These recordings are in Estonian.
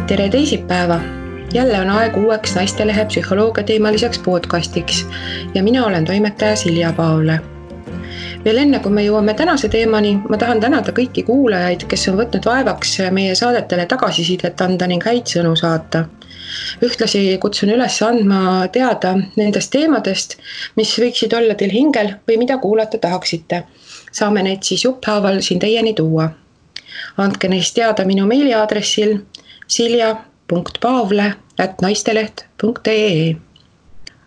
Tere teisipäeva! Jälle on aeg uueks Naistelehe psühholoogia teemaliseks podcastiks ja mina olen toimetaja Silja Paavle. Veel enne, kui me jõuame tänase teemani, ma tahan tänada kõiki kuulajaid, kes on võtnud vaevaks meie saadetele tagasisidet anda ning häid sõnu saata. Ühtlasi kutsun üles andma teada nendest teemadest, mis võiksid olla teil hingel või mida kuulata tahaksite. Saame neid siis jupphaaval siin teieni tuua. Andke neist teada minu meiliaadressil silja.paavle@naisteleht.ee.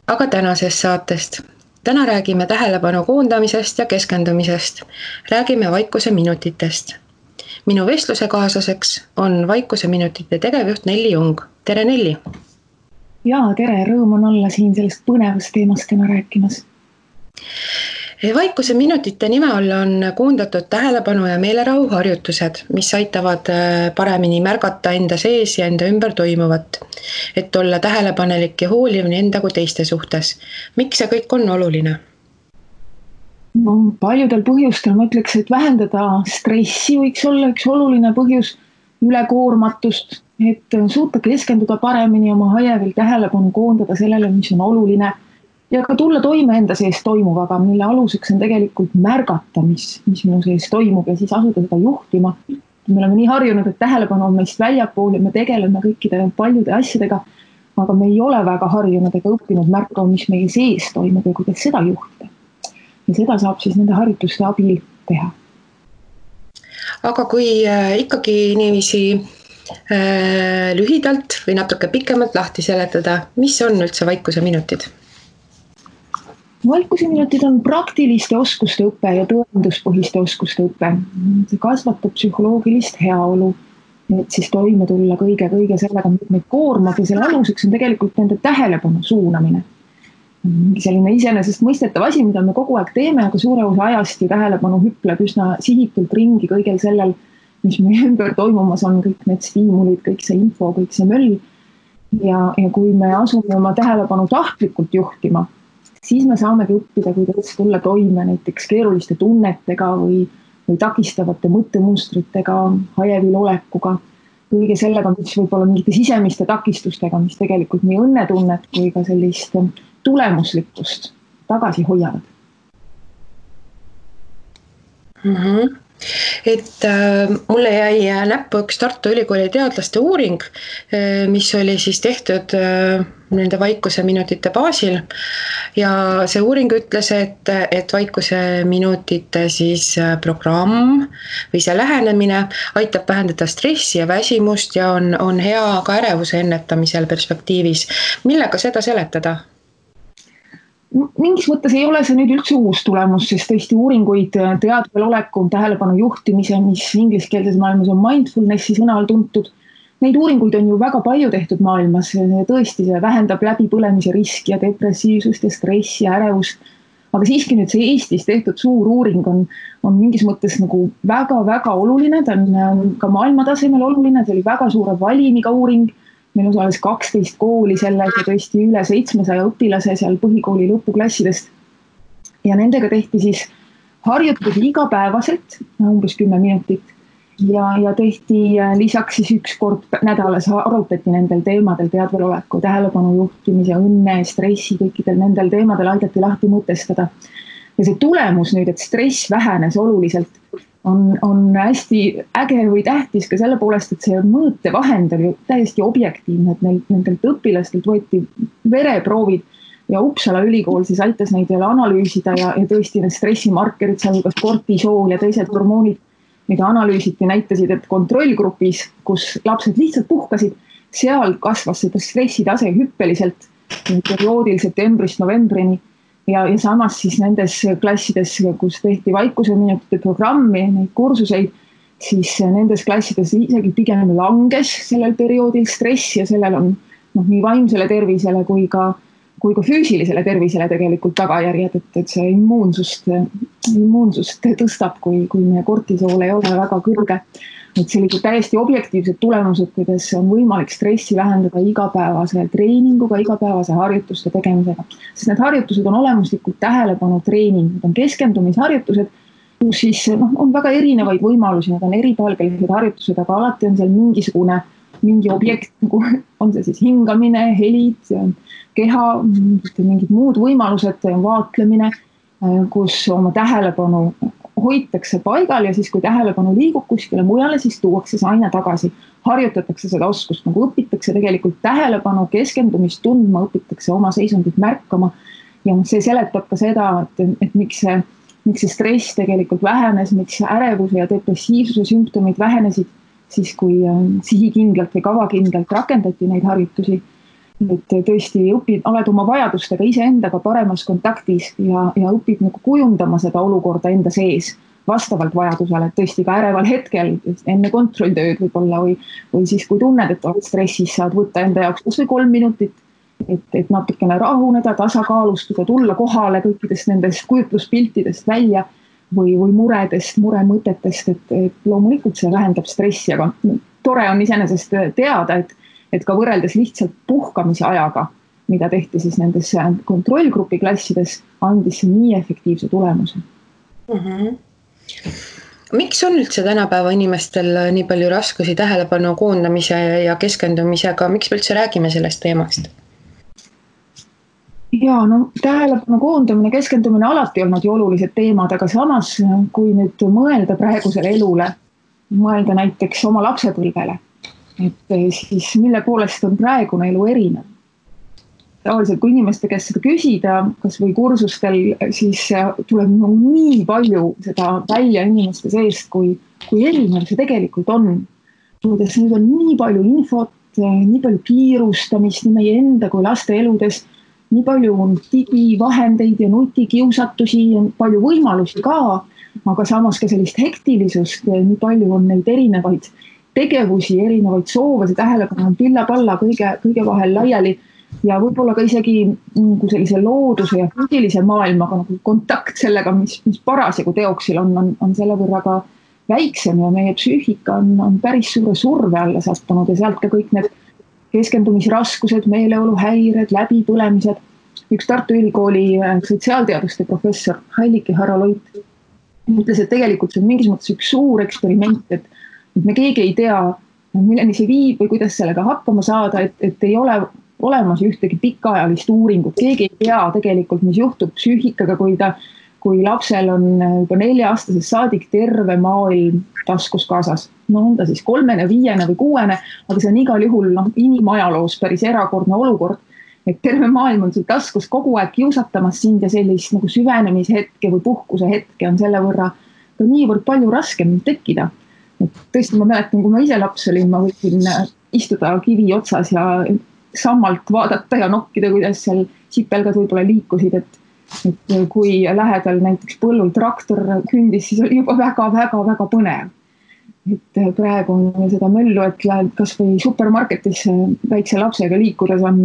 Aga tänasest saatest. Täna räägime tähelepanu koondamisest ja keskendumisest. Räägime vaikuse minutitest. Minu vestlusekaaslaseks on vaikuse minutite tegevjuht Nelli Jung. Tere Nelli! Jaa, tere! Rõõm on olla siin sellest põnevast teemast täna rääkimas. Vaikuse minutite nime all on koondatud tähelepanu ja meelerahu harjutused, mis aitavad paremini märgata enda sees ja enda ümber toimuvat, et olla tähelepanelik ja hooliv nii enda kui teiste suhtes. Miks see kõik on oluline? No, paljudel põhjustel ma ütleks, et vähendada stressi võiks olla üks oluline põhjus, ülekoormatust, et suuta keskenduda paremini oma hajevil tähelepanu koondada sellele, mis on oluline ja ka tulla toime enda sees toimuvaga, mille aluseks on tegelikult märgata, mis minu sees toimub ja siis asuda seda juhtima. Me oleme nii harjunud, et tähelepanu on meist väljapool ja me tegeleme kõikide paljude asjadega, aga me ei ole väga harjunud ega õppinud märkama, mis meie sees toimub ja kuidas seda juhtida. Ja seda saab siis nende harjutuste abil teha. Aga kui ikkagi niiviisi lühidalt või natuke pikemalt lahti seletada, mis on üldse vaikuse minutid? Vaikuse minutid on praktiliste oskuste õpe ja tõenduspõhiste oskuste õpe. See kasvatab psühholoogilist heaolu, et siis toime tulla kõige sellega, mis meid koormab ja selle aluseks on tegelikult nende tähelepanu suunamine. Selline iseenesest mõistetav asi, mida me kogu aeg teeme, aga suure osa ajast ja tähelepanu hüpleb üsna sihitult ringi kõigel sellel, mis meie ümber toimumas on, kõik need stiimulid, kõik see info, kõik see möll. Ja kui me asume oma tähelepanu tahtlikult juhtima, siis me saamegi õppida, kuidas tulla toime näiteks keeruliste tunnetega või takistavate mõttemustritega, hajevil olekuga, kõige sellega, mis võib olla mingite sisemiste takistustega, mis tegelikult nii õnnetunnet kui ka sellist tulemuslikkust tagasi hoiavad. Et mulle jäi näppu üks Tartu Ülikooli teadlaste uuring, mis oli siis tehtud nende vaikuse minutite baasil ja see uuring ütles, et vaikuse minutite siis programm või see lähenemine aitab vähendada stressi ja väsimust ja on hea ka ärevuse ennetamisel perspektiivis. Millega seda seletada? Mingis mõttes ei ole see nüüd üldse uus tulemus, sest tõesti uuringuid teadvel oleku, tähelepanu juhtimise, mis ingliskeelses maailmas on mindfulnessi sõna all tuntud. Neid uuringuid on ju väga palju tehtud maailmas. Tõesti see vähendab läbipõlemise riski ja depressiivsust ja stressi ja ärevust. Aga siiski nüüd see Eestis tehtud suur uuring on mingis mõttes nagu väga oluline. Ta on ka maailmatasemel oluline. See oli väga suure valimiga uuring. Meil osales 12 kooli selles ja tõesti üle 700 õpilase seal põhikooli lõpuklassidest. Ja nendega tehti siis harjutusi igapäevaselt, umbes 10 minutit. Ja tehti lisaks siis üks kord nädalas arutati nendel teemadel teadvel oleku, tähelepanu juhtimise, õnne, stressi, kõikidel nendel teemadel aidati lahti mõtestada. Ja see tulemus nüüd, et stress vähenes oluliselt, on hästi äge või tähtis ka selle poolest, et see mõõtevahend oli täiesti objektiivne, et nendelt õpilastelt võeti vereproovid ja Uppsala ülikool siis aitas neid jälle analüüsida ja tõesti need stressimarkerid, sealhulgas kortisool ja teised hormoonid, mida analüüsiti, näitasid, et kontrollgrupis, kus lapsed lihtsalt puhkasid, seal kasvas seda stressitase hüppeliselt perioodil septembrist novembrini. Ja samas siis nendes klassides, kus tehti vaikuse minutite programmi, neid kursuseid, siis nendes klassides isegi pigem langes sellel perioodil stress ja sellel on nii vaimsele tervisele kui ka füüsilisele tervisele tegelikult tagajärjed, et see immuunsust tõstab, kui meie kortisool ei ole väga kõrge. Et sellised täiesti objektiivsed tulemused, kuidas on võimalik stressi vähendada igapäevase treeninguga, igapäevase harjutuste tegemisega. Sest need harjutused on olemuslikult tähelepanu treening, need on keskendumisharjutused, kus siis on väga erinevaid võimalusi, need on eripalgelised harjutused, aga alati on seal mingisugune mingi objekt, nagu on see siis hingamine, helid, keha, mingid muud võimalused, vaatlemine, kus oma tähelepanu hoitakse paigal ja siis, kui tähelepanu liigub kuskile mujale, siis tuuakse see aina tagasi. Harjutatakse seda oskust, nagu õpitakse tegelikult tähelepanu, keskendumist tundma, õpitakse oma seisundit märkama. Ja see seletab ka seda, et miks see stress tegelikult vähenes, miks ärevuse ja depressiivsuse sümptomid vähenesid siis, kui sihikindlalt või kavakindlalt rakendati neid harjutusi. Et tõesti oled oma vajadustega iseendaga paremas kontaktis ja õpid nagu kujundama seda olukorda enda sees vastavalt vajadusele, et tõesti ka äreval hetkel enne kontrolltööd võib-olla või siis, kui tunned, et oled stressis, saad võtta enda jaoks kas või 3 minutit, et natukene rahuneda, tasakaalustuda, tulla kohale kõikidest nendest kujutluspiltidest välja või muredest, muremõtetest, et loomulikult see vähendab stressi, aga tore on iseenesest teada, et ka võrreldes lihtsalt puhkamise ajaga, mida tehti siis nendes kontrollgrupi klassides, andis see nii efektiivse tulemuse. Miks on üldse tänapäeva inimestel nii palju raskusi tähelepanu koondamise ja keskendumisega, miks me üldse räägime sellest teemast? Ja tähelepanu koondamine, keskendumine alati olnud ju olulised teemad, aga samas, kui nüüd mõelda praegusele elule, mõelda näiteks oma lapsepõlvele, et siis mille poolest on praegune elu erinev. Tavaliselt, kui inimeste käest seda küsida, kas või kursustel, siis tuleb nii palju seda välja inimeste seest, kui erinev see tegelikult on. Kuidas nüüd on nii palju infot, nii palju kiirustamist nii meie enda kui laste eludes, nii palju on digivahendeid ja nutikiusatusi, palju võimalusi ka, aga samas ka sellist hektilisust, nii palju on neid erinevaid tegevusi, erinevaid soove, see tähelepanu on pilla-palla kõige vahel laiali ja võib-olla ka isegi sellise looduse ja füüsilise maailmaga nagu kontakt sellega, mis parasjagu teoksil on selle võrra ka väiksem ja meie psüühika on päris suure surve alla sattunud ja sealt ka kõik need keskendumisraskused, meeleoluhäired, läbipõlemised. Üks Tartu Ülikooli sotsiaalteaduste professor Heilike Haraloit ütles, et tegelikult see on mingis mõttes üks suur eksperiment, et me keegi ei tea, milleni see viib või kuidas sellega hakkama saada, et ei ole olemas ühtegi pikaajalist uuringut. Keegi ei tea tegelikult, mis juhtub psüühikaga, kui lapsel on juba 4-aastasest saadik terve maailm taskus kaasas. On ta siis 3, 5 või 6, aga see on igal juhul inimajaloos päris erakordne olukord, et terve maailm on sul taskus kogu aeg kiusatamas sind ja sellist nagu süvenemishetke või puhkuse hetke on selle võrra ka niivõrd palju raskem tekkida. Et tõesti ma mäletan, kui ma ise laps olin, ma võisin istuda kivi otsas ja sammalt vaadata ja nokkida, kuidas seal sipelgad võib-olla liikusid, et kui lähedal näiteks põllul traktor kündis, siis oli juba väga põnev. Et praegu on seda möllu, et lähed kas või supermarketis väikse lapsega liikudes on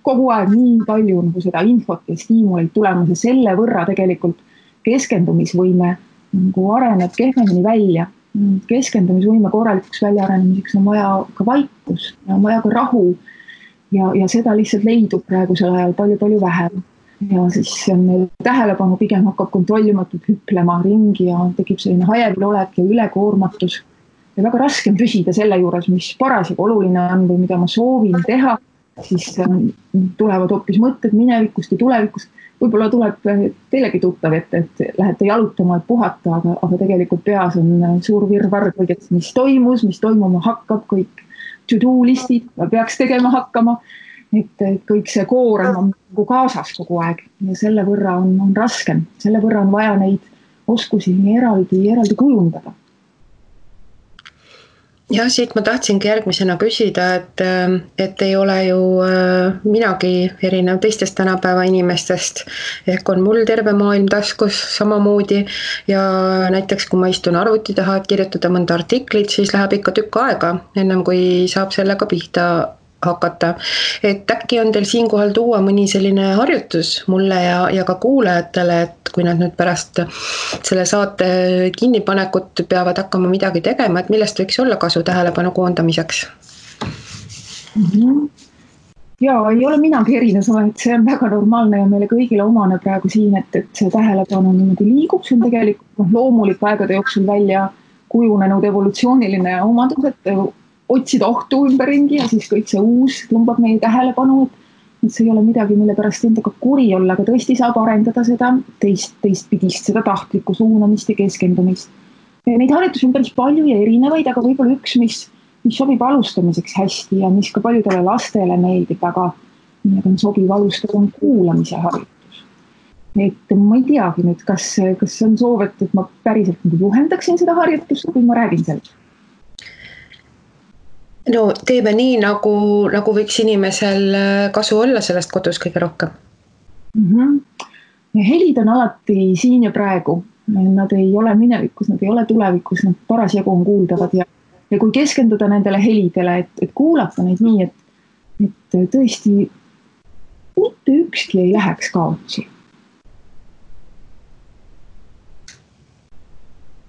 kogu aeg nii palju nagu seda infot ja stiimuleid tulemas ja selle võrra tegelikult keskendumisvõime nagu areneb kehvemini välja. Keskendumisvõime korralikuks väljaarenemiseks on vaja ka vaikus ja on vaja ka rahu ja seda lihtsalt leidub praegusel ajal palju vähem. Ja siis tähelepanu pigem hakkab kontrollimatult hüplema ringi ja tekib selline hajevil olek ja ülekoormatus. Ja väga raske on püsida selle juures, mis parasjagu oluline on või mida ma soovin teha, siis tulevad hoopis mõtted minevikust ja tulevikust. Võib-olla tuleb teilegi tuttav, et lähete jalutama, et puhata, aga tegelikult peas on suur virvarr kõigest, mis toimus, mis toimuma hakkab, kõik to-do listid peaks tegema hakkama. Et kõik see koorem on kaasas kogu aeg ja selle võrra on raskem. Selle võrra on vaja neid oskusi eraldi kujundada. Ja siit ma tahtsingi järgmisena küsida, et ei ole ju minagi erinev teistest tänapäeva inimestest. Ehk on mul terve maailm taskus samamoodi ja näiteks kui ma istun arvuti taha, et kirjutada mõnda artiklit, siis läheb ikka tükk aega, ennem kui saab sellega pihta hakata. Et äkki on teil siinkohal tuua mõni selline harjutus mulle ja ka kuulajatele, et kui nad nüüd pärast selle saate kinnipanekut peavad hakkama midagi tegema, et millest võiks olla kasu tähelepanu koondamiseks? Ja ei ole minagi erinev, et see on väga normaalne ja meile kõigile omane praegu siin, et see tähelepanu liigub, see on tegelikult loomulik aegade jooksul välja kujunenud evolutsiooniline omadus, et otsida ohtu ümberringi ja siis kõik see uus tõmbab meie tähelepanu, et see ei ole midagi, mille pärast endaga kuri olla, aga tõesti saab arendada seda teistpidist, seda tahtlikku suunamist ja keskendumist. Neid harjutusi on päris palju ja erinevaid, aga võib-olla üks, mis sobib alustamiseks hästi ja mis ka paljudele lastele meeldib, aga millega on sobiv alustada, on kuulamise harjutus. Et ma ei teagi nüüd, kas on soov, et ma päriselt juhendaksin seda harjutust, kui ma räägin sellest? No teeme nii, nagu võiks inimesel kasu olla sellest kodus kõige rohkem. Helid on alati siin ja praegu. Nad ei ole minevikus, nad ei ole tulevikus, nad parasjagu on kuuldavad ja kui keskenduda nendele helidele, et kuulata neid nii, et tõesti mitte ükski ei läheks kaotsi.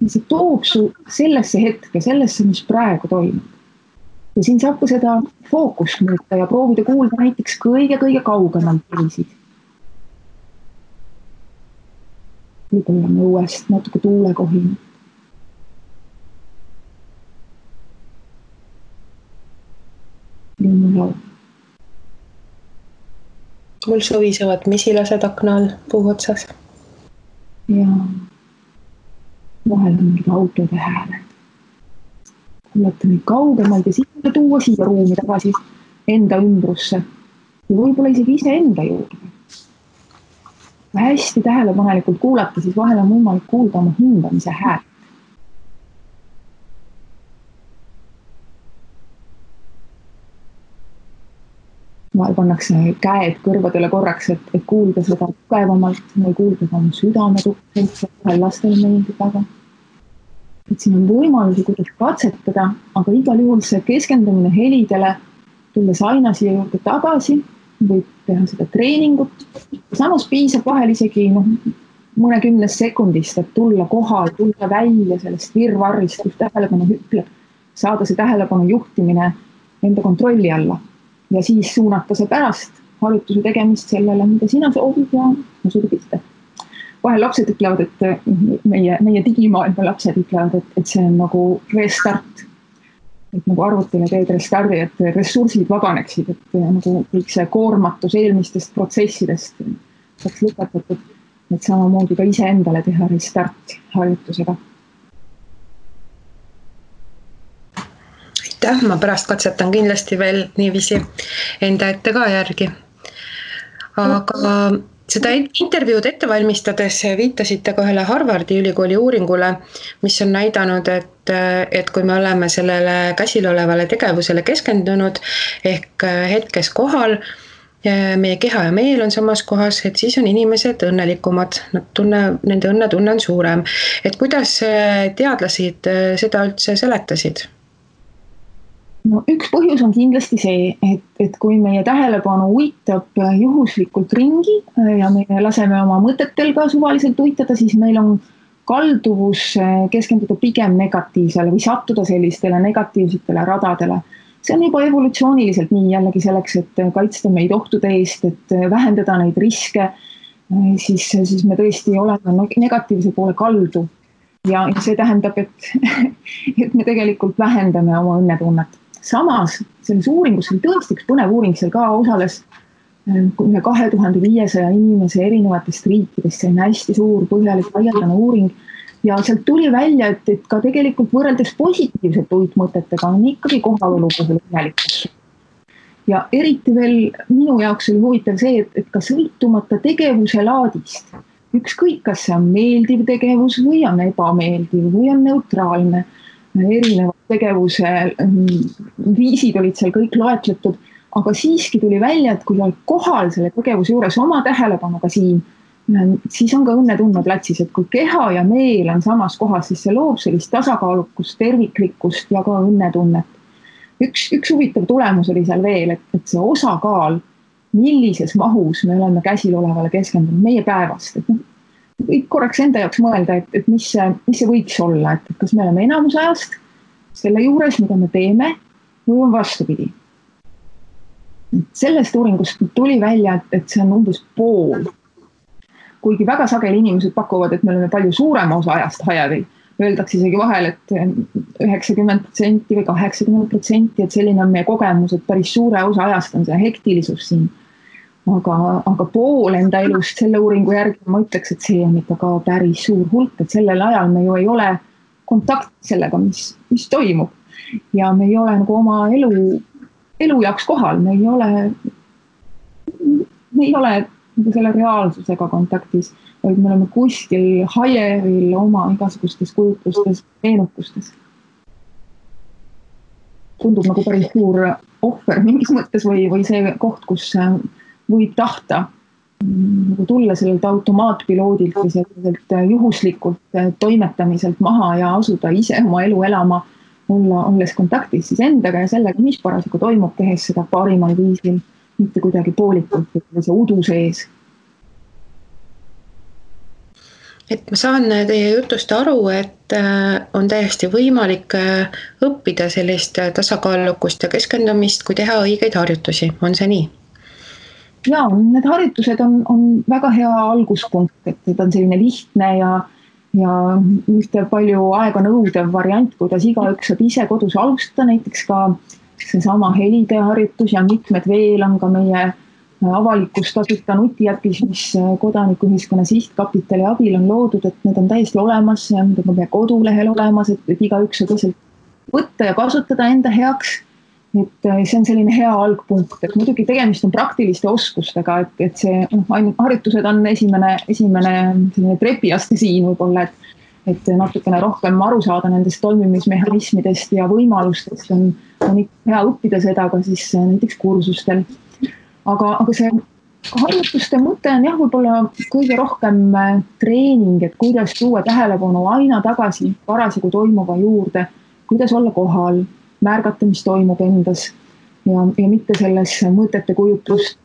See toob su sellesse hetke, sellesse, mis praegu toimub. Ja siin saab ka seda fookust muuta ja proovida kuulda näiteks kõige kaugemalt helisid. Võib-olla õuest natuke tuulekohin. Linnulaul. Mul sovisevad mesilased akna all puu otsas. Ja vahel on mingid autode hääled. Kuulata neid kaugemalt ja siis tuua siia ruumi tagasi enda ümbrusse ja võib-olla isegi ise enda juurde. Hästi tähelepanelikult kuulata, siis vahel on võimalik kuulda oma hindamise häält. Vahel pannakse käed kõrvadele korraks, et kuulda seda tugevamalt või kuulda ka oma südame tukselt, vahel lastele meeldib väga. Et siin on võimalusi, kuidas katsetada, aga igal juhul see keskendumine helidele, tulles aina siia juurde tagasi, võib teha seda treeningut. Samas piisab vahel isegi mõnekümnes sekundist, et tulla kohal, tulla välja sellest virvarrist, kus tähelepanu hüpleb, saada see tähelepanu juhtimine enda kontrolli alla ja siis suunata see pärast harjutuse tegemist sellele, mida sina soovid ja suuda pista. Vahel lapsed ütlevad, et meie digimaailma lapsed ütlevad, et see on nagu restart. Et nagu arvutile teed restardi, et ressursid vabaneksid, et nagu kõik see koormatus eelmistest protsessidest saaks lõpetatud, et samamoodi ka ise endale teha restart harjutusega. Aitäh, ma pärast katsetan kindlasti veel niiviisi enda ette ka järgi. Aga seda intervjuud ette valmistades viitasite ka ühele Harvardi ülikooli uuringule, mis on näidanud, et kui me oleme sellele käsil olevale tegevusele keskendunud ehk hetkes kohal, meie keha ja meel on samas kohas, et siis on inimesed õnnelikumad, nende õnnetunne on suurem. Et kuidas teadlased seda üldse seletasid? No, üks põhjus on kindlasti see, et kui meie tähelepanu uitab juhuslikult ringi ja me laseme oma mõtetel ka suvaliselt uitada, siis meil on kalduvus keskenduda pigem negatiivsele või sattuda sellistele negatiivsetele radadele. See on juba evolutsiooniliselt nii jällegi selleks, et kaitsta meid ohtude eest, et vähendada neid riske, siis me tõesti oleme negatiivse poole kaldu. Ja see tähendab, et me tegelikult vähendame oma õnnetunnet. Samas, selles uuringus oli tõesti üks põnev uuring, seal ka osales üle 2500 inimese erinevatest riikidest, see on hästi suur põhjalik laialdane uuring ja sealt tuli välja, et ka tegelikult võrreldes positiivsete uitmõtetega on ikkagi kohalolu puhul õnnelikus. Ja eriti veel minu jaoks oli huvitav see, et ka sõltumata tegevuse laadist, ükskõik kas see on meeldiv tegevus või on ebameeldiv või on neutraalne, erinevad tegevuse viisid olid seal kõik loetletud, aga siiski tuli välja, et kui oled kohal selle tegevuse juures oma tähelepanuga siin, siis on ka õnnetunne platsis, et kui keha ja meel on samas kohas, siis see loob sellist tasakaalukust, terviklikkust ja ka õnnetunnet. Üks huvitav tulemus oli seal veel, et see osakaal, millises mahus me oleme käsil olevale keskendunud meie päevast, võib korraks enda jaoks mõelda, et mis see võiks olla, et kas me oleme enamus ajast selle juures, mida me teeme, või on vastupidi. Sellest uuringust tuli välja, et see on umbes pool. Kuigi väga sageli inimesed pakuvad, et me oleme palju suurema osa ajast hajadel, öeldakse isegi vahel, et 90% või 80%, et selline on meie kogemus, et päris suure osa ajast on see hektilisus siin. Aga pool enda elust selle uuringu järgi ma ütleks, et see on ikka ka päris suur hulk, et sellel ajal me ju ei ole kontakt sellega, mis toimub. Ja me ei ole nagu oma elu jaoks kohal, me ei ole nagu selle reaalsusega kontaktis, vaid me oleme kuskil hajevil oma igasugustes kujutlustes, meenutustes. Tundub nagu päris suur ohver mingis mõttes või see koht, kus võib tahta nagu tulla sellelt automaatpiloodilt või selliselt juhuslikult toimetamiselt maha ja asuda ise oma elu elama, olles kontaktis siis endaga ja sellega, mis parasjagu toimub, tehes seda parimal viisil, mitte kuidagi poolikult või see udu sees. Et ma saan teie jutust aru, et on täiesti võimalik õppida sellist tasakaalukust ja keskendumist, kui teha õigeid harjutusi. On see nii? Jaa, need harjutused on väga hea alguspunkt, et on selline lihtne ja ühte palju aega nõudev variant, kuidas igaüks saab ise kodus alustada, näiteks ka seesama helide harjutus ja mitmed veel on ka meie avalikus tasuta nutiäpis, mis kodanikuühiskonna sihtkapitali abil on loodud, et need on täiesti olemas, need on meie kodulehel olemas, et igaüks saab lihtsalt võtta ja kasutada enda heaks. Et see on selline hea algpunkt, et muidugi tegemist on praktiliste oskustega, et see harjutused on esimene trepiaste siin võib-olla, et natukene rohkem aru saada nendest toimimismehhanismidest ja võimalustest on ikka hea õppida seda ka siis näiteks kursustel. Aga see harjutuste mõte on jah, võib-olla kõige rohkem treening, et kuidas tuua tähelepanu aina tagasi parasjagu toimuva juurde, kuidas olla kohal, märgata, mis toimub endas ja mitte selles mõtete kujutlust,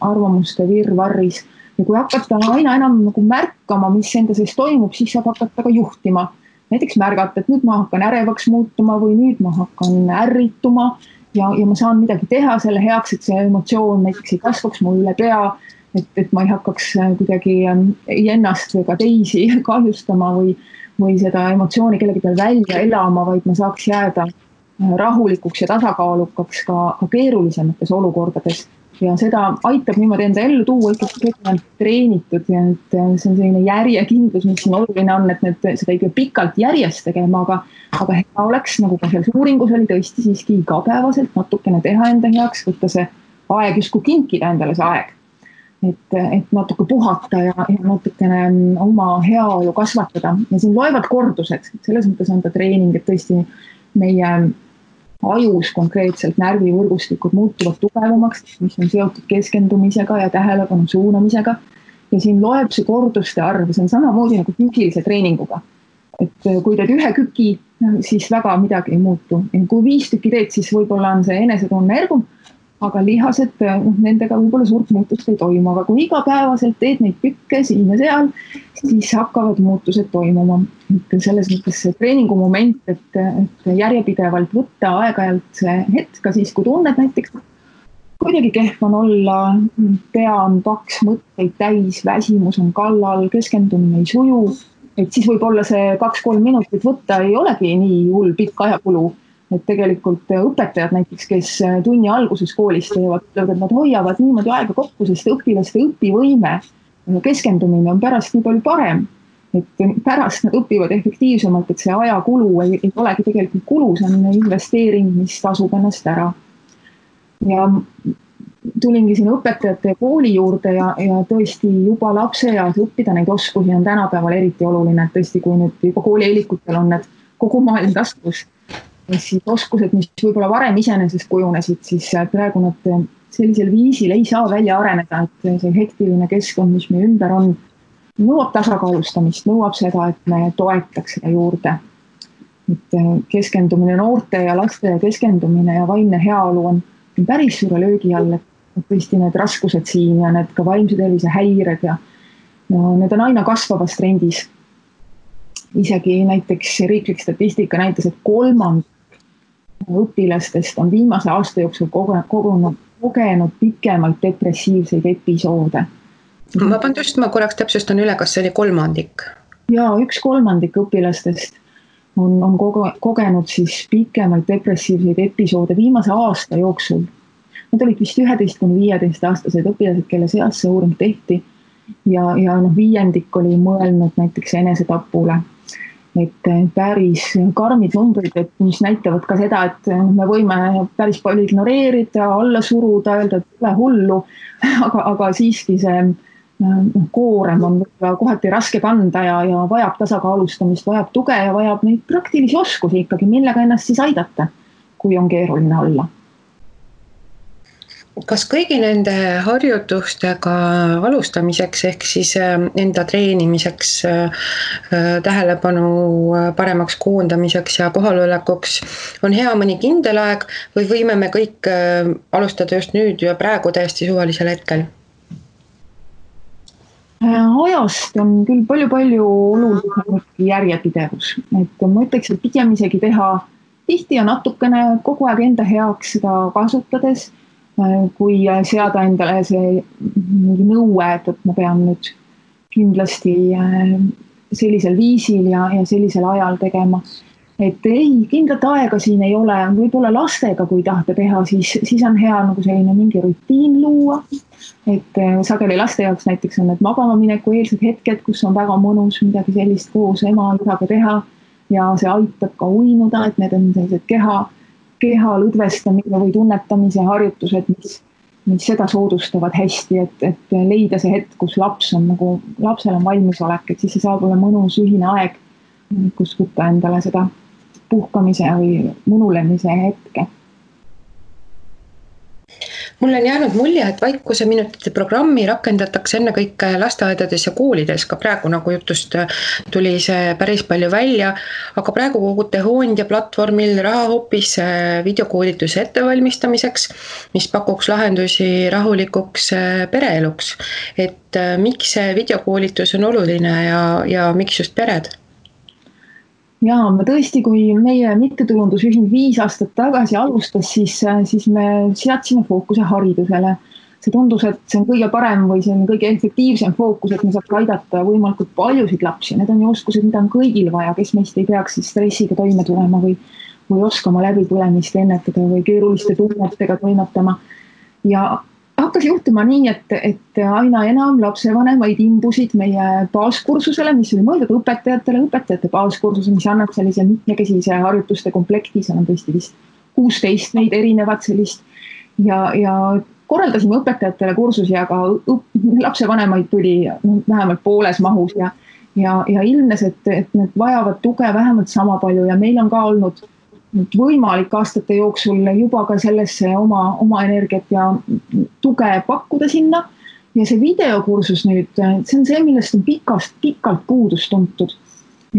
arvamuste virvarris. Ja kui hakata aina enam nagu märkama, mis enda sees toimub, siis saab hakata ka juhtima. Näiteks märgata, et nüüd ma hakkan ärevaks muutuma või nüüd ma hakkan ärrituma ja ma saan midagi teha selle heaks, et see emotsioon näiteks ei kasvaks mu üle pea, et ma ei hakkaks kuidagi ennast või ka teisi kahjustama või seda emotsiooni kellegi peal välja elama, vaid ma saaks jääda rahulikuks ja tasakaalukaks ka keerulisemates olukordades. Ja seda aitab niimoodi enda ellu tuua ikkagi treenitud ja see on selline järjekindlus, mis siin oluline on, et seda ei pea pikalt järjest tegema, aga hea oleks, nagu ka selles uuringus oli tõesti siiski igapäevaselt natukene teha enda heaks, võtta see aeg justkui kinkida endale see aeg. Et natuke puhata ja natukene oma heaolu kasvatada. Ja siin loevad kordused, selles mõttes on ta treening, et tõesti meie ajus konkreetselt närvivõrgustikud muutuvad tugevamaks, mis on seotud keskendumisega ja tähelepanu suunamisega. Ja siin loeb see korduste arv, see on samamoodi nagu füüsilise treeninguga. Et kui teed ühe küki, siis väga midagi ei muutu. Ja kui 5 tükki teed, siis võib-olla on see enesetunne ergum, aga lihased, nendega võib-olla suurt muutust ei toimu. Aga kui igapäevaselt teed neid kükke siin ja seal, siis hakkavad muutused toimuma. Selles mõttes see treeningu moment, et järjepidevalt võtta aeg-ajalt see hetk, ka siis kui tunned näiteks, kuidagi kehv on olla, pea on paks, mõtteid täis, väsimus on kallal, keskendumine ei suju, et siis võib-olla see 2-3 minutit võtta ei olegi nii hull pikk ajakulu. Et tegelikult õpetajad näiteks, kes tunni alguses koolis teevad, et nad hoiavad niimoodi aega kokku, sest õpilaste õpivõime ja keskendumine on pärast nii palju parem. Et pärast nad õpivad efektiivsemalt, et see ajakulu ei olegi tegelikult kulu, see on investeering, mis tasub ennast ära. Ja tulingi siin õpetajate kooli juurde ja tõesti juba lapseeas õppida neid oskusi on tänapäeval eriti oluline, et tõesti kui nüüd juba koolieelikutel on need kogu maailm taskus, siis oskused, mis võib-olla varem iseenesest kujunesid, siis praegu nad sellisel viisil ei saa välja areneda, et see hektiline keskkond, mis meie ümber on, nõuab tasakaalustamist, nõuab seda, et me toetaks seda juurde. Et keskendumine noorte ja laste keskendumine ja vaimne heaolu on päris suure löögi all, et tõesti need raskused siin ja need ka vaimse tervise häired ja need on aina kasvavas trendis. Isegi näiteks riiklik statistika näitas, et 3% õpilastest on viimase aasta jooksul kogenud pikemalt depressiivseid episoode. Vabandust, ma korraks täpsustan üle, kas see oli 3%? Ja 1/3 õpilastest on kogenud siis pikemaid depressiivseid episoode viimase aasta jooksul. Need olid vist 11–15-aastased õpilased, kelle seas see uuring tehti ja 5% oli mõelnud näiteks enesetapule. Et päris karmid numbrid, mis näitavad ka seda, et me võime päris palju ignoreerida, alla suruda, öelda, et pole hullu, aga siiski see koorem on kohati raske kanda ja vajab tasakaalustamist, vajab tuge ja vajab neid praktilisi oskusi ikkagi, millega ennast siis aidata, kui on keeruline olla. Kas kõigi nende harjutustega alustamiseks ehk siis enda treenimiseks, tähelepanu paremaks koondamiseks ja kohalolekuks on hea mõni kindel aeg või võime me kõik alustada just nüüd ja praegu täiesti suvalisel hetkel? Ajast on küll palju olulisem järjepidevus. Et ma ütleks, et pigem isegi teha tihti ja natukene kogu aeg enda heaks seda kasutades, kui seada endale see mingi nõue, et ma pean nüüd kindlasti sellisel viisil ja sellisel ajal tegema. Et ei, kindlat aega siin ei ole, võib-olla lastega, kui tahta teha, siis on hea nagu selline mingi rutiin luua. Et sageli laste jaoks näiteks on need magama mineku eelsed hetked, kus on väga mõnus midagi sellist koos ema isaga teha ja see aitab ka uinuda, et need on sellised keha lõdvestamise või tunnetamise harjutused, mis seda soodustavad hästi, et leida see hetk, kus lapsel on valmisolek, et siis see saab olla mõnus ühine aeg, kus võtta endale seda puhkamise või mõnulemise hetke. Mul on jäänud mulje, et vaikuse minutite programmi rakendatakse ennekõike lasteaedades ja koolides, ka praegu nagu jutust tuli see päris palju välja, aga praegu kogute Hoondia platvormil raha hoopis videokoolituse ettevalmistamiseks, mis pakuks lahendusi rahulikuks pereeluks. Et miks see videokoolitus on oluline ja miks just pered? Jaa, me tõesti, kui meie mittetulundusühing 5 aastat tagasi alustas, siis me seadsime fookuse haridusele. See tundus, et see on kõige parem või see on kõige efektiivsem fookus, et me saaks aidata võimalikult paljusid lapsi. Need on ju oskused, mida on kõigil vaja, kes meist ei peaks siis stressiga toime tulema või oskama läbipõlemist ennetada või keeruliste tunnetega toimetama. Ja hakkas juhtuma nii, et aina enam lapsevanemaid imbusid meie baaskursusele, mis oli mõeldud õpetajate baaskursuse, mis annab sellise mitmekesise harjutuste komplekti, seal on tõesti vist 16 neid erinevat sellist ja korraldasime õpetajatele kursusi, aga lapsevanemaid tuli vähemalt pooles mahus ja ilmnes, et need vajavad tuge vähemalt sama palju ja meil on ka olnud võimalik aastate jooksul juba ka sellesse oma energiat ja tuge pakkuda sinna. Ja see videokursus nüüd, see on see, millest on pikalt puudust tuntud.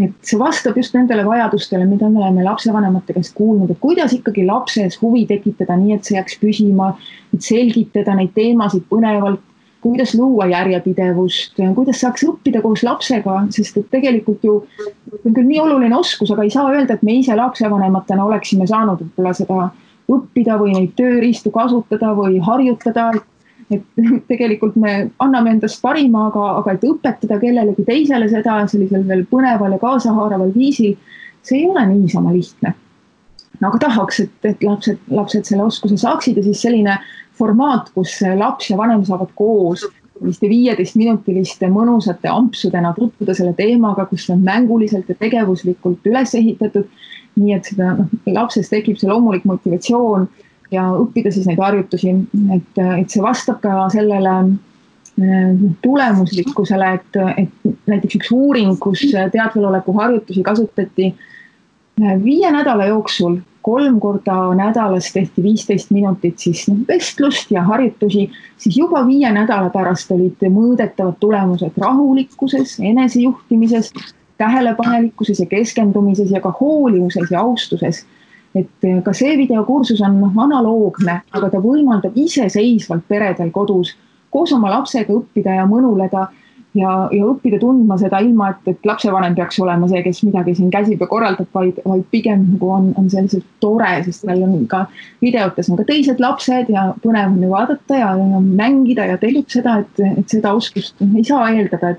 Et see vastab just nendele vajadustele, mida me oleme lapsevanemate käest kuulnud, et kuidas ikkagi lapses huvi tekitada nii, et see jääks püsima, et selgitada neid teemasid põnevalt, kuidas luua järjepidevust, kuidas saaks õppida koos lapsega, sest et tegelikult ju on küll nii oluline oskus, aga ei saa öelda, et me ise lapsevanematena oleksime saanud võib-olla seda õppida või neid tööriistu kasutada või harjutada, et tegelikult me anname endast parima, aga et õpetada kellelegi teisele seda sellisel veel põneval ja kaasahaaraval viisil, see ei ole niisama lihtne. Aga tahaks, et lapsed selle oskuse saaksid ja siis selline formaat, kus laps ja vanem saavad koos 15-minutiliste mõnusate ampsudena tutvuda selle teemaga, kus on mänguliselt ja tegevuslikult üles ehitatud, nii et seda lapses tekib see loomulik motivatsioon ja õppida siis neid harjutusi, et see vastab ka sellele tulemuslikkusele, et näiteks üks uuring, kus teadveloleku harjutusi kasutati 5 nädala jooksul 3 korda nädalas tehti 15 minutit siis vestlust ja harjutusi, siis juba 5 nädala pärast olid mõõdetavad tulemused rahulikkuses, enesejuhtimises, tähelepanelikkuses ja keskendumises ja ka hoolivuses ja austuses. Et ka see videokursus on analoogne, aga ta võimaldab iseseisvalt peredel kodus koos oma lapsega õppida ja mõnuleda ja õppida tundma seda ilma, et lapsevanem peaks olema see, kes midagi siin käsib ja korraldab, vaid pigem on selliselt tore, sest meil on ka videotes on ka teised lapsed ja põnev on ju vaadata ja mängida ja tegutseda, et seda oskust ei saa eeldada,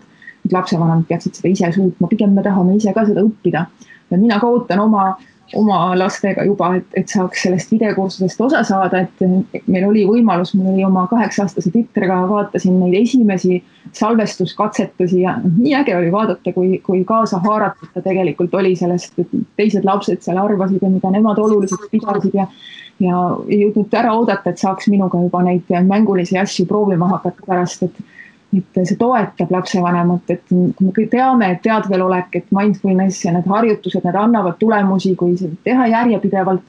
et lapsevanemad peaksid seda ise suutma, pigem me tahame ise ka seda õppida. Ja mina ka ootan oma lastega juba, et saaks sellest videokursusest osa saada, et meil oli võimalus, mul oli oma 8-aastase tütrega, vaatasin neid esimesi salvestuskatsetusi ja nii äge oli vaadata, kui kaasa haaratud ta tegelikult oli sellest, et teised lapsed seal arvasid ja mida nemad oluliselt pidasid ja ei jõudnud ära oodata, et saaks minuga juba neid mängulisi asju proovima hakata pärast, et see toetab lapsevanemat, et kui me teame, et teadvelolek, et mindfulness ja need harjutused, need annavad tulemusi, kui teha järjepidevalt,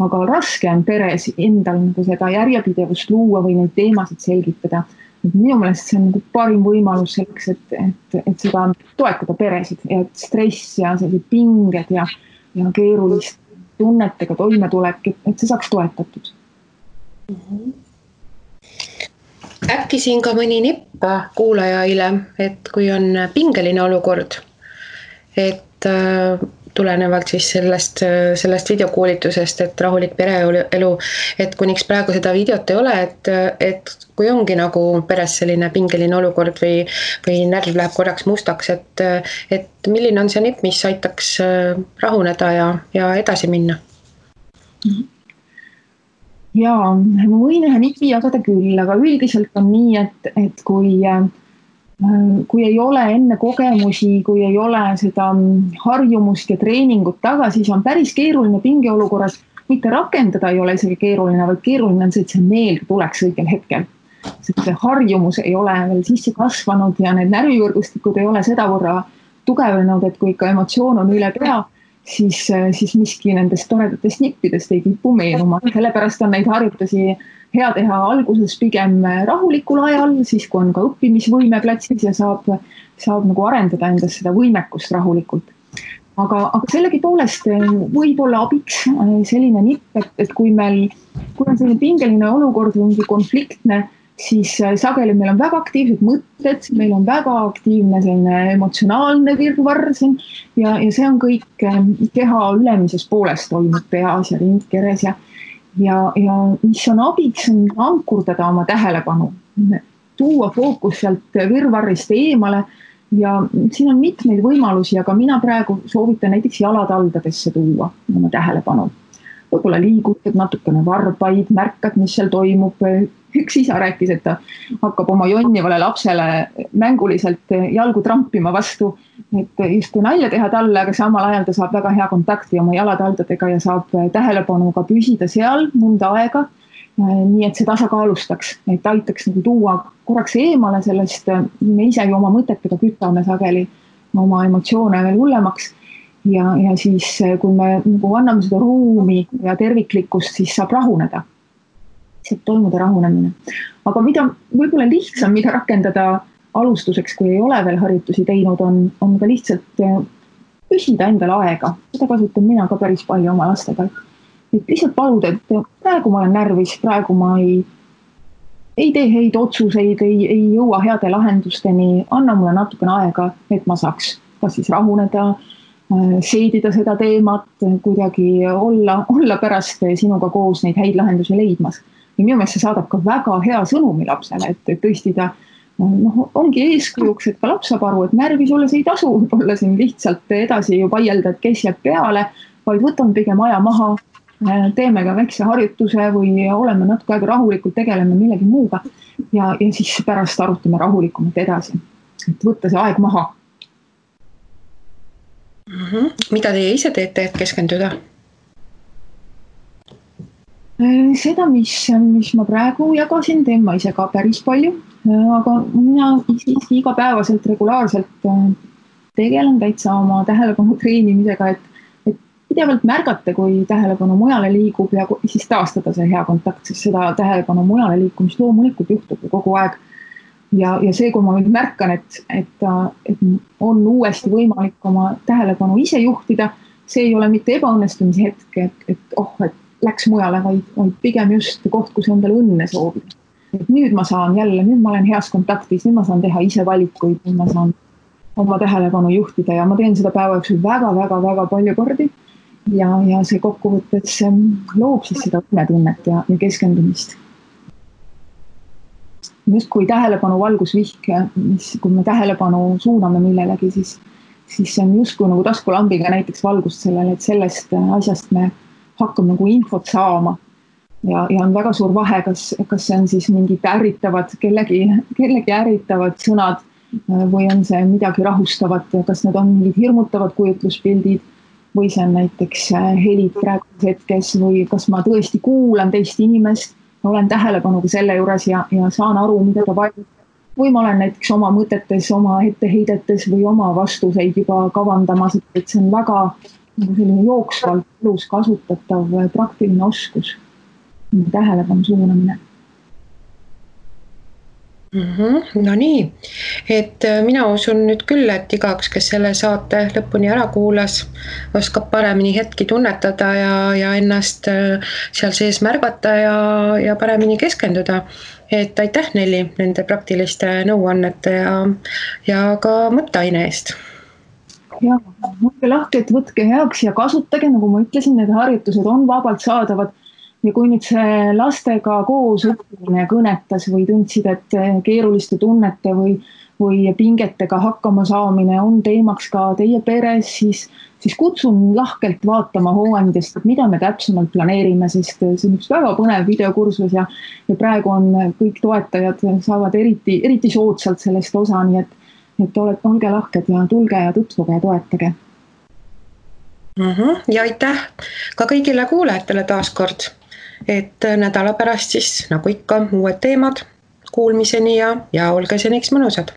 aga raske on peres endal nagu seda järjepidevust luua või neid teemasid selgitada. Minu meelest see on nagu parim võimalus selleks, et seda toetada peresid ja et stress ja sellised pinged ja keerulist tunnetega toimetulek, et see saaks toetatud. Äkki siin ka mõni nipp kuulajaile, et kui on pingeline olukord, et tulenevalt siis sellest videokoolitusest, et rahulik pereelu, et kuniks praegu seda videot ei ole, et kui ongi nagu peres selline pingeline olukord või närv läheb korraks mustaks, et milline on see nipp, mis aitaks rahuneda ja edasi minna? Jaa, ma võin ühe nipi jagada küll, aga üldiselt on nii, et kui ei ole enne kogemusi, kui ei ole seda harjumust ja treeningut taga, siis on päris keeruline pingeolukorras, mitte rakendada ei ole isegi keeruline, vaid keeruline on see, et see meelde tuleks õigel hetkel. See harjumus ei ole veel sisse kasvanud ja need närvivõrgustikud ei ole sedavõrra tugevnenud, et kui ikka emotsioon on üle pea, siis miski nendest toredatest nippidest ei kipu meenuma. Sellepärast on neid harjutusi hea teha alguses pigem rahulikul ajal, siis kui on ka õppimisvõime platsis ja saab nagu arendada endas seda võimekust rahulikult. Aga sellegi poolest võib olla abiks selline nipp, et kui on selline pingeline olukord või mingi konfliktne, siis sageli meil on väga aktiivsed mõtted, meil on väga aktiivne selline emotsionaalne virvarr siin ja see on kõik keha ülemises pooles toimub peas ja rindkeres ja mis on abiks on ankurdada oma tähelepanu, tuua fookus sealt virvarrist eemale ja siin on mitmeid võimalusi, aga mina praegu soovitan näiteks jalataldadesse tuua oma tähelepanu. Võib-olla liigutad natukene varbaid, märkad, mis seal toimub. Üks isa rääkis, et ta hakkab oma jonnivale lapsele mänguliselt jalgu trampima vastu, et justkui nalja teha talle, aga samal ajal ta saab väga hea kontakti oma jalataldadega ja saab tähelepanuga püsida seal mõnda aega, nii et see tasakaalustaks, et aitaks nagu tuua korraks eemale sellest, me ise ju oma mõtetega kütame sageli oma emotsioone veel hullemaks ja siis kui me nagu anname seda ruumi ja terviklikkust, siis saab rahuneda. Saab toimuda rahunemine. Aga mida võib-olla lihtsam, mida rakendada alustuseks, kui ei ole veel harjutusi teinud, on ka lihtsalt küsida endale aega. Seda kasutan mina ka päris palju oma lastega. Et lihtsalt paluda, et praegu ma olen närvis, praegu ma ei tee häid otsuseid, ei jõua heade lahendusteni, anna mulle natukene aega, et ma saaks kas siis rahuneda, seedida seda teemat, kuidagi olla pärast sinuga koos neid häid lahendusi leidmas. Ja minu meelest see saadab ka väga hea sõnumi lapsele, et tõesti ta ongi eeskujuks, et ka laps saab aru, et närvis olles ei tasu olla siin lihtsalt edasi ju vaielda, et kes jääb peale, vaid võtame pigem aja maha, teeme ka väikse harjutuse või oleme natuke aega rahulikult, tegeleme millegi muuga ja siis pärast arutame rahulikumalt edasi, et võtta see aeg maha. Mida teie ise teete, et keskenduda? Seda, mis ma praegu jagasin, teen ma ise ka päris palju, aga mina siiski igapäevaselt regulaarselt tegelen täitsa oma tähelepanu treenimisega, et pidevalt märgata, kui tähelepanu mujale liigub ja siis taastada see hea kontakt, sest seda tähelepanu mujale liikumist loomulikult juhtub kogu aeg. Ja see, kui ma nüüd märkan, et on uuesti võimalik oma tähelepanu ise juhtida, see ei ole mitte ebaõnnestumise hetk, et läks mujale, vaid pigem just koht, kus endale õnne soovida. Et nüüd ma saan jälle, nüüd ma olen heas kontaktis, nüüd ma saan teha ise valikuid, nüüd ma saan oma tähelepanu juhtida ja ma teen seda päeva jooksul väga palju kordi ja see kokkuvõttes loob siis seda õnnetunnet ja keskendumist. justkui tähelepanu valgusvihk, kui me tähelepanu suuname millelegi, siis see on justkui nagu taskulambiga näiteks valgust sellele, et sellest asjast me hakkame nagu infot saama. Ja on väga suur vahe, kas see on siis mingid ärritavad, kellegi ärritavad sõnad või on see midagi rahustavat, kas need on mingid hirmutavad kujutluspildid või see on näiteks helid praeguses hetkes või kas ma tõesti kuulan teist inimest, olen tähelepanuga selle juures ja saan aru, mida ta vajab. Või ma olen näiteks oma mõtetes, oma etteheidetes või oma vastuseid juba kavandamas, et see on väga selline jooksvalt elus kasutatav praktiline oskus, tähelepanu suunamine. No nii, et mina usun nüüd küll, et igaks, kes selle saate lõpuni ära kuulas, oskab paremini hetki tunnetada ja ennast seal sees märgata ja paremini keskenduda. Et aitäh Nelli nende praktiliste nõuannete ja ka mõtteaine eest. Ja, mõtke lahke, et võtke heaks ja kasutage, nagu ma ütlesin, need harjutused on vabalt saadavad. Ja kui nüüd see lastega koos õppimine kõnetas või tundsid, et keeruliste tunnete või pingetega hakkama saamine on teemaks ka teie peres, siis kutsun lahkelt vaatama hooandjast, et mida me täpsemalt planeerime, sest see on üks väga põnev videokursus ja praegu on kõik toetajad saavad eriti soodsalt sellest osa, nii et olge lahked ja tulge ja tutvuge ja toetage. Ja aitäh ka kõigile kuulajatele taaskord. Et nädala pärast siis, nagu ikka, uued teemad kuulmiseni ja olge seniks mõnusad.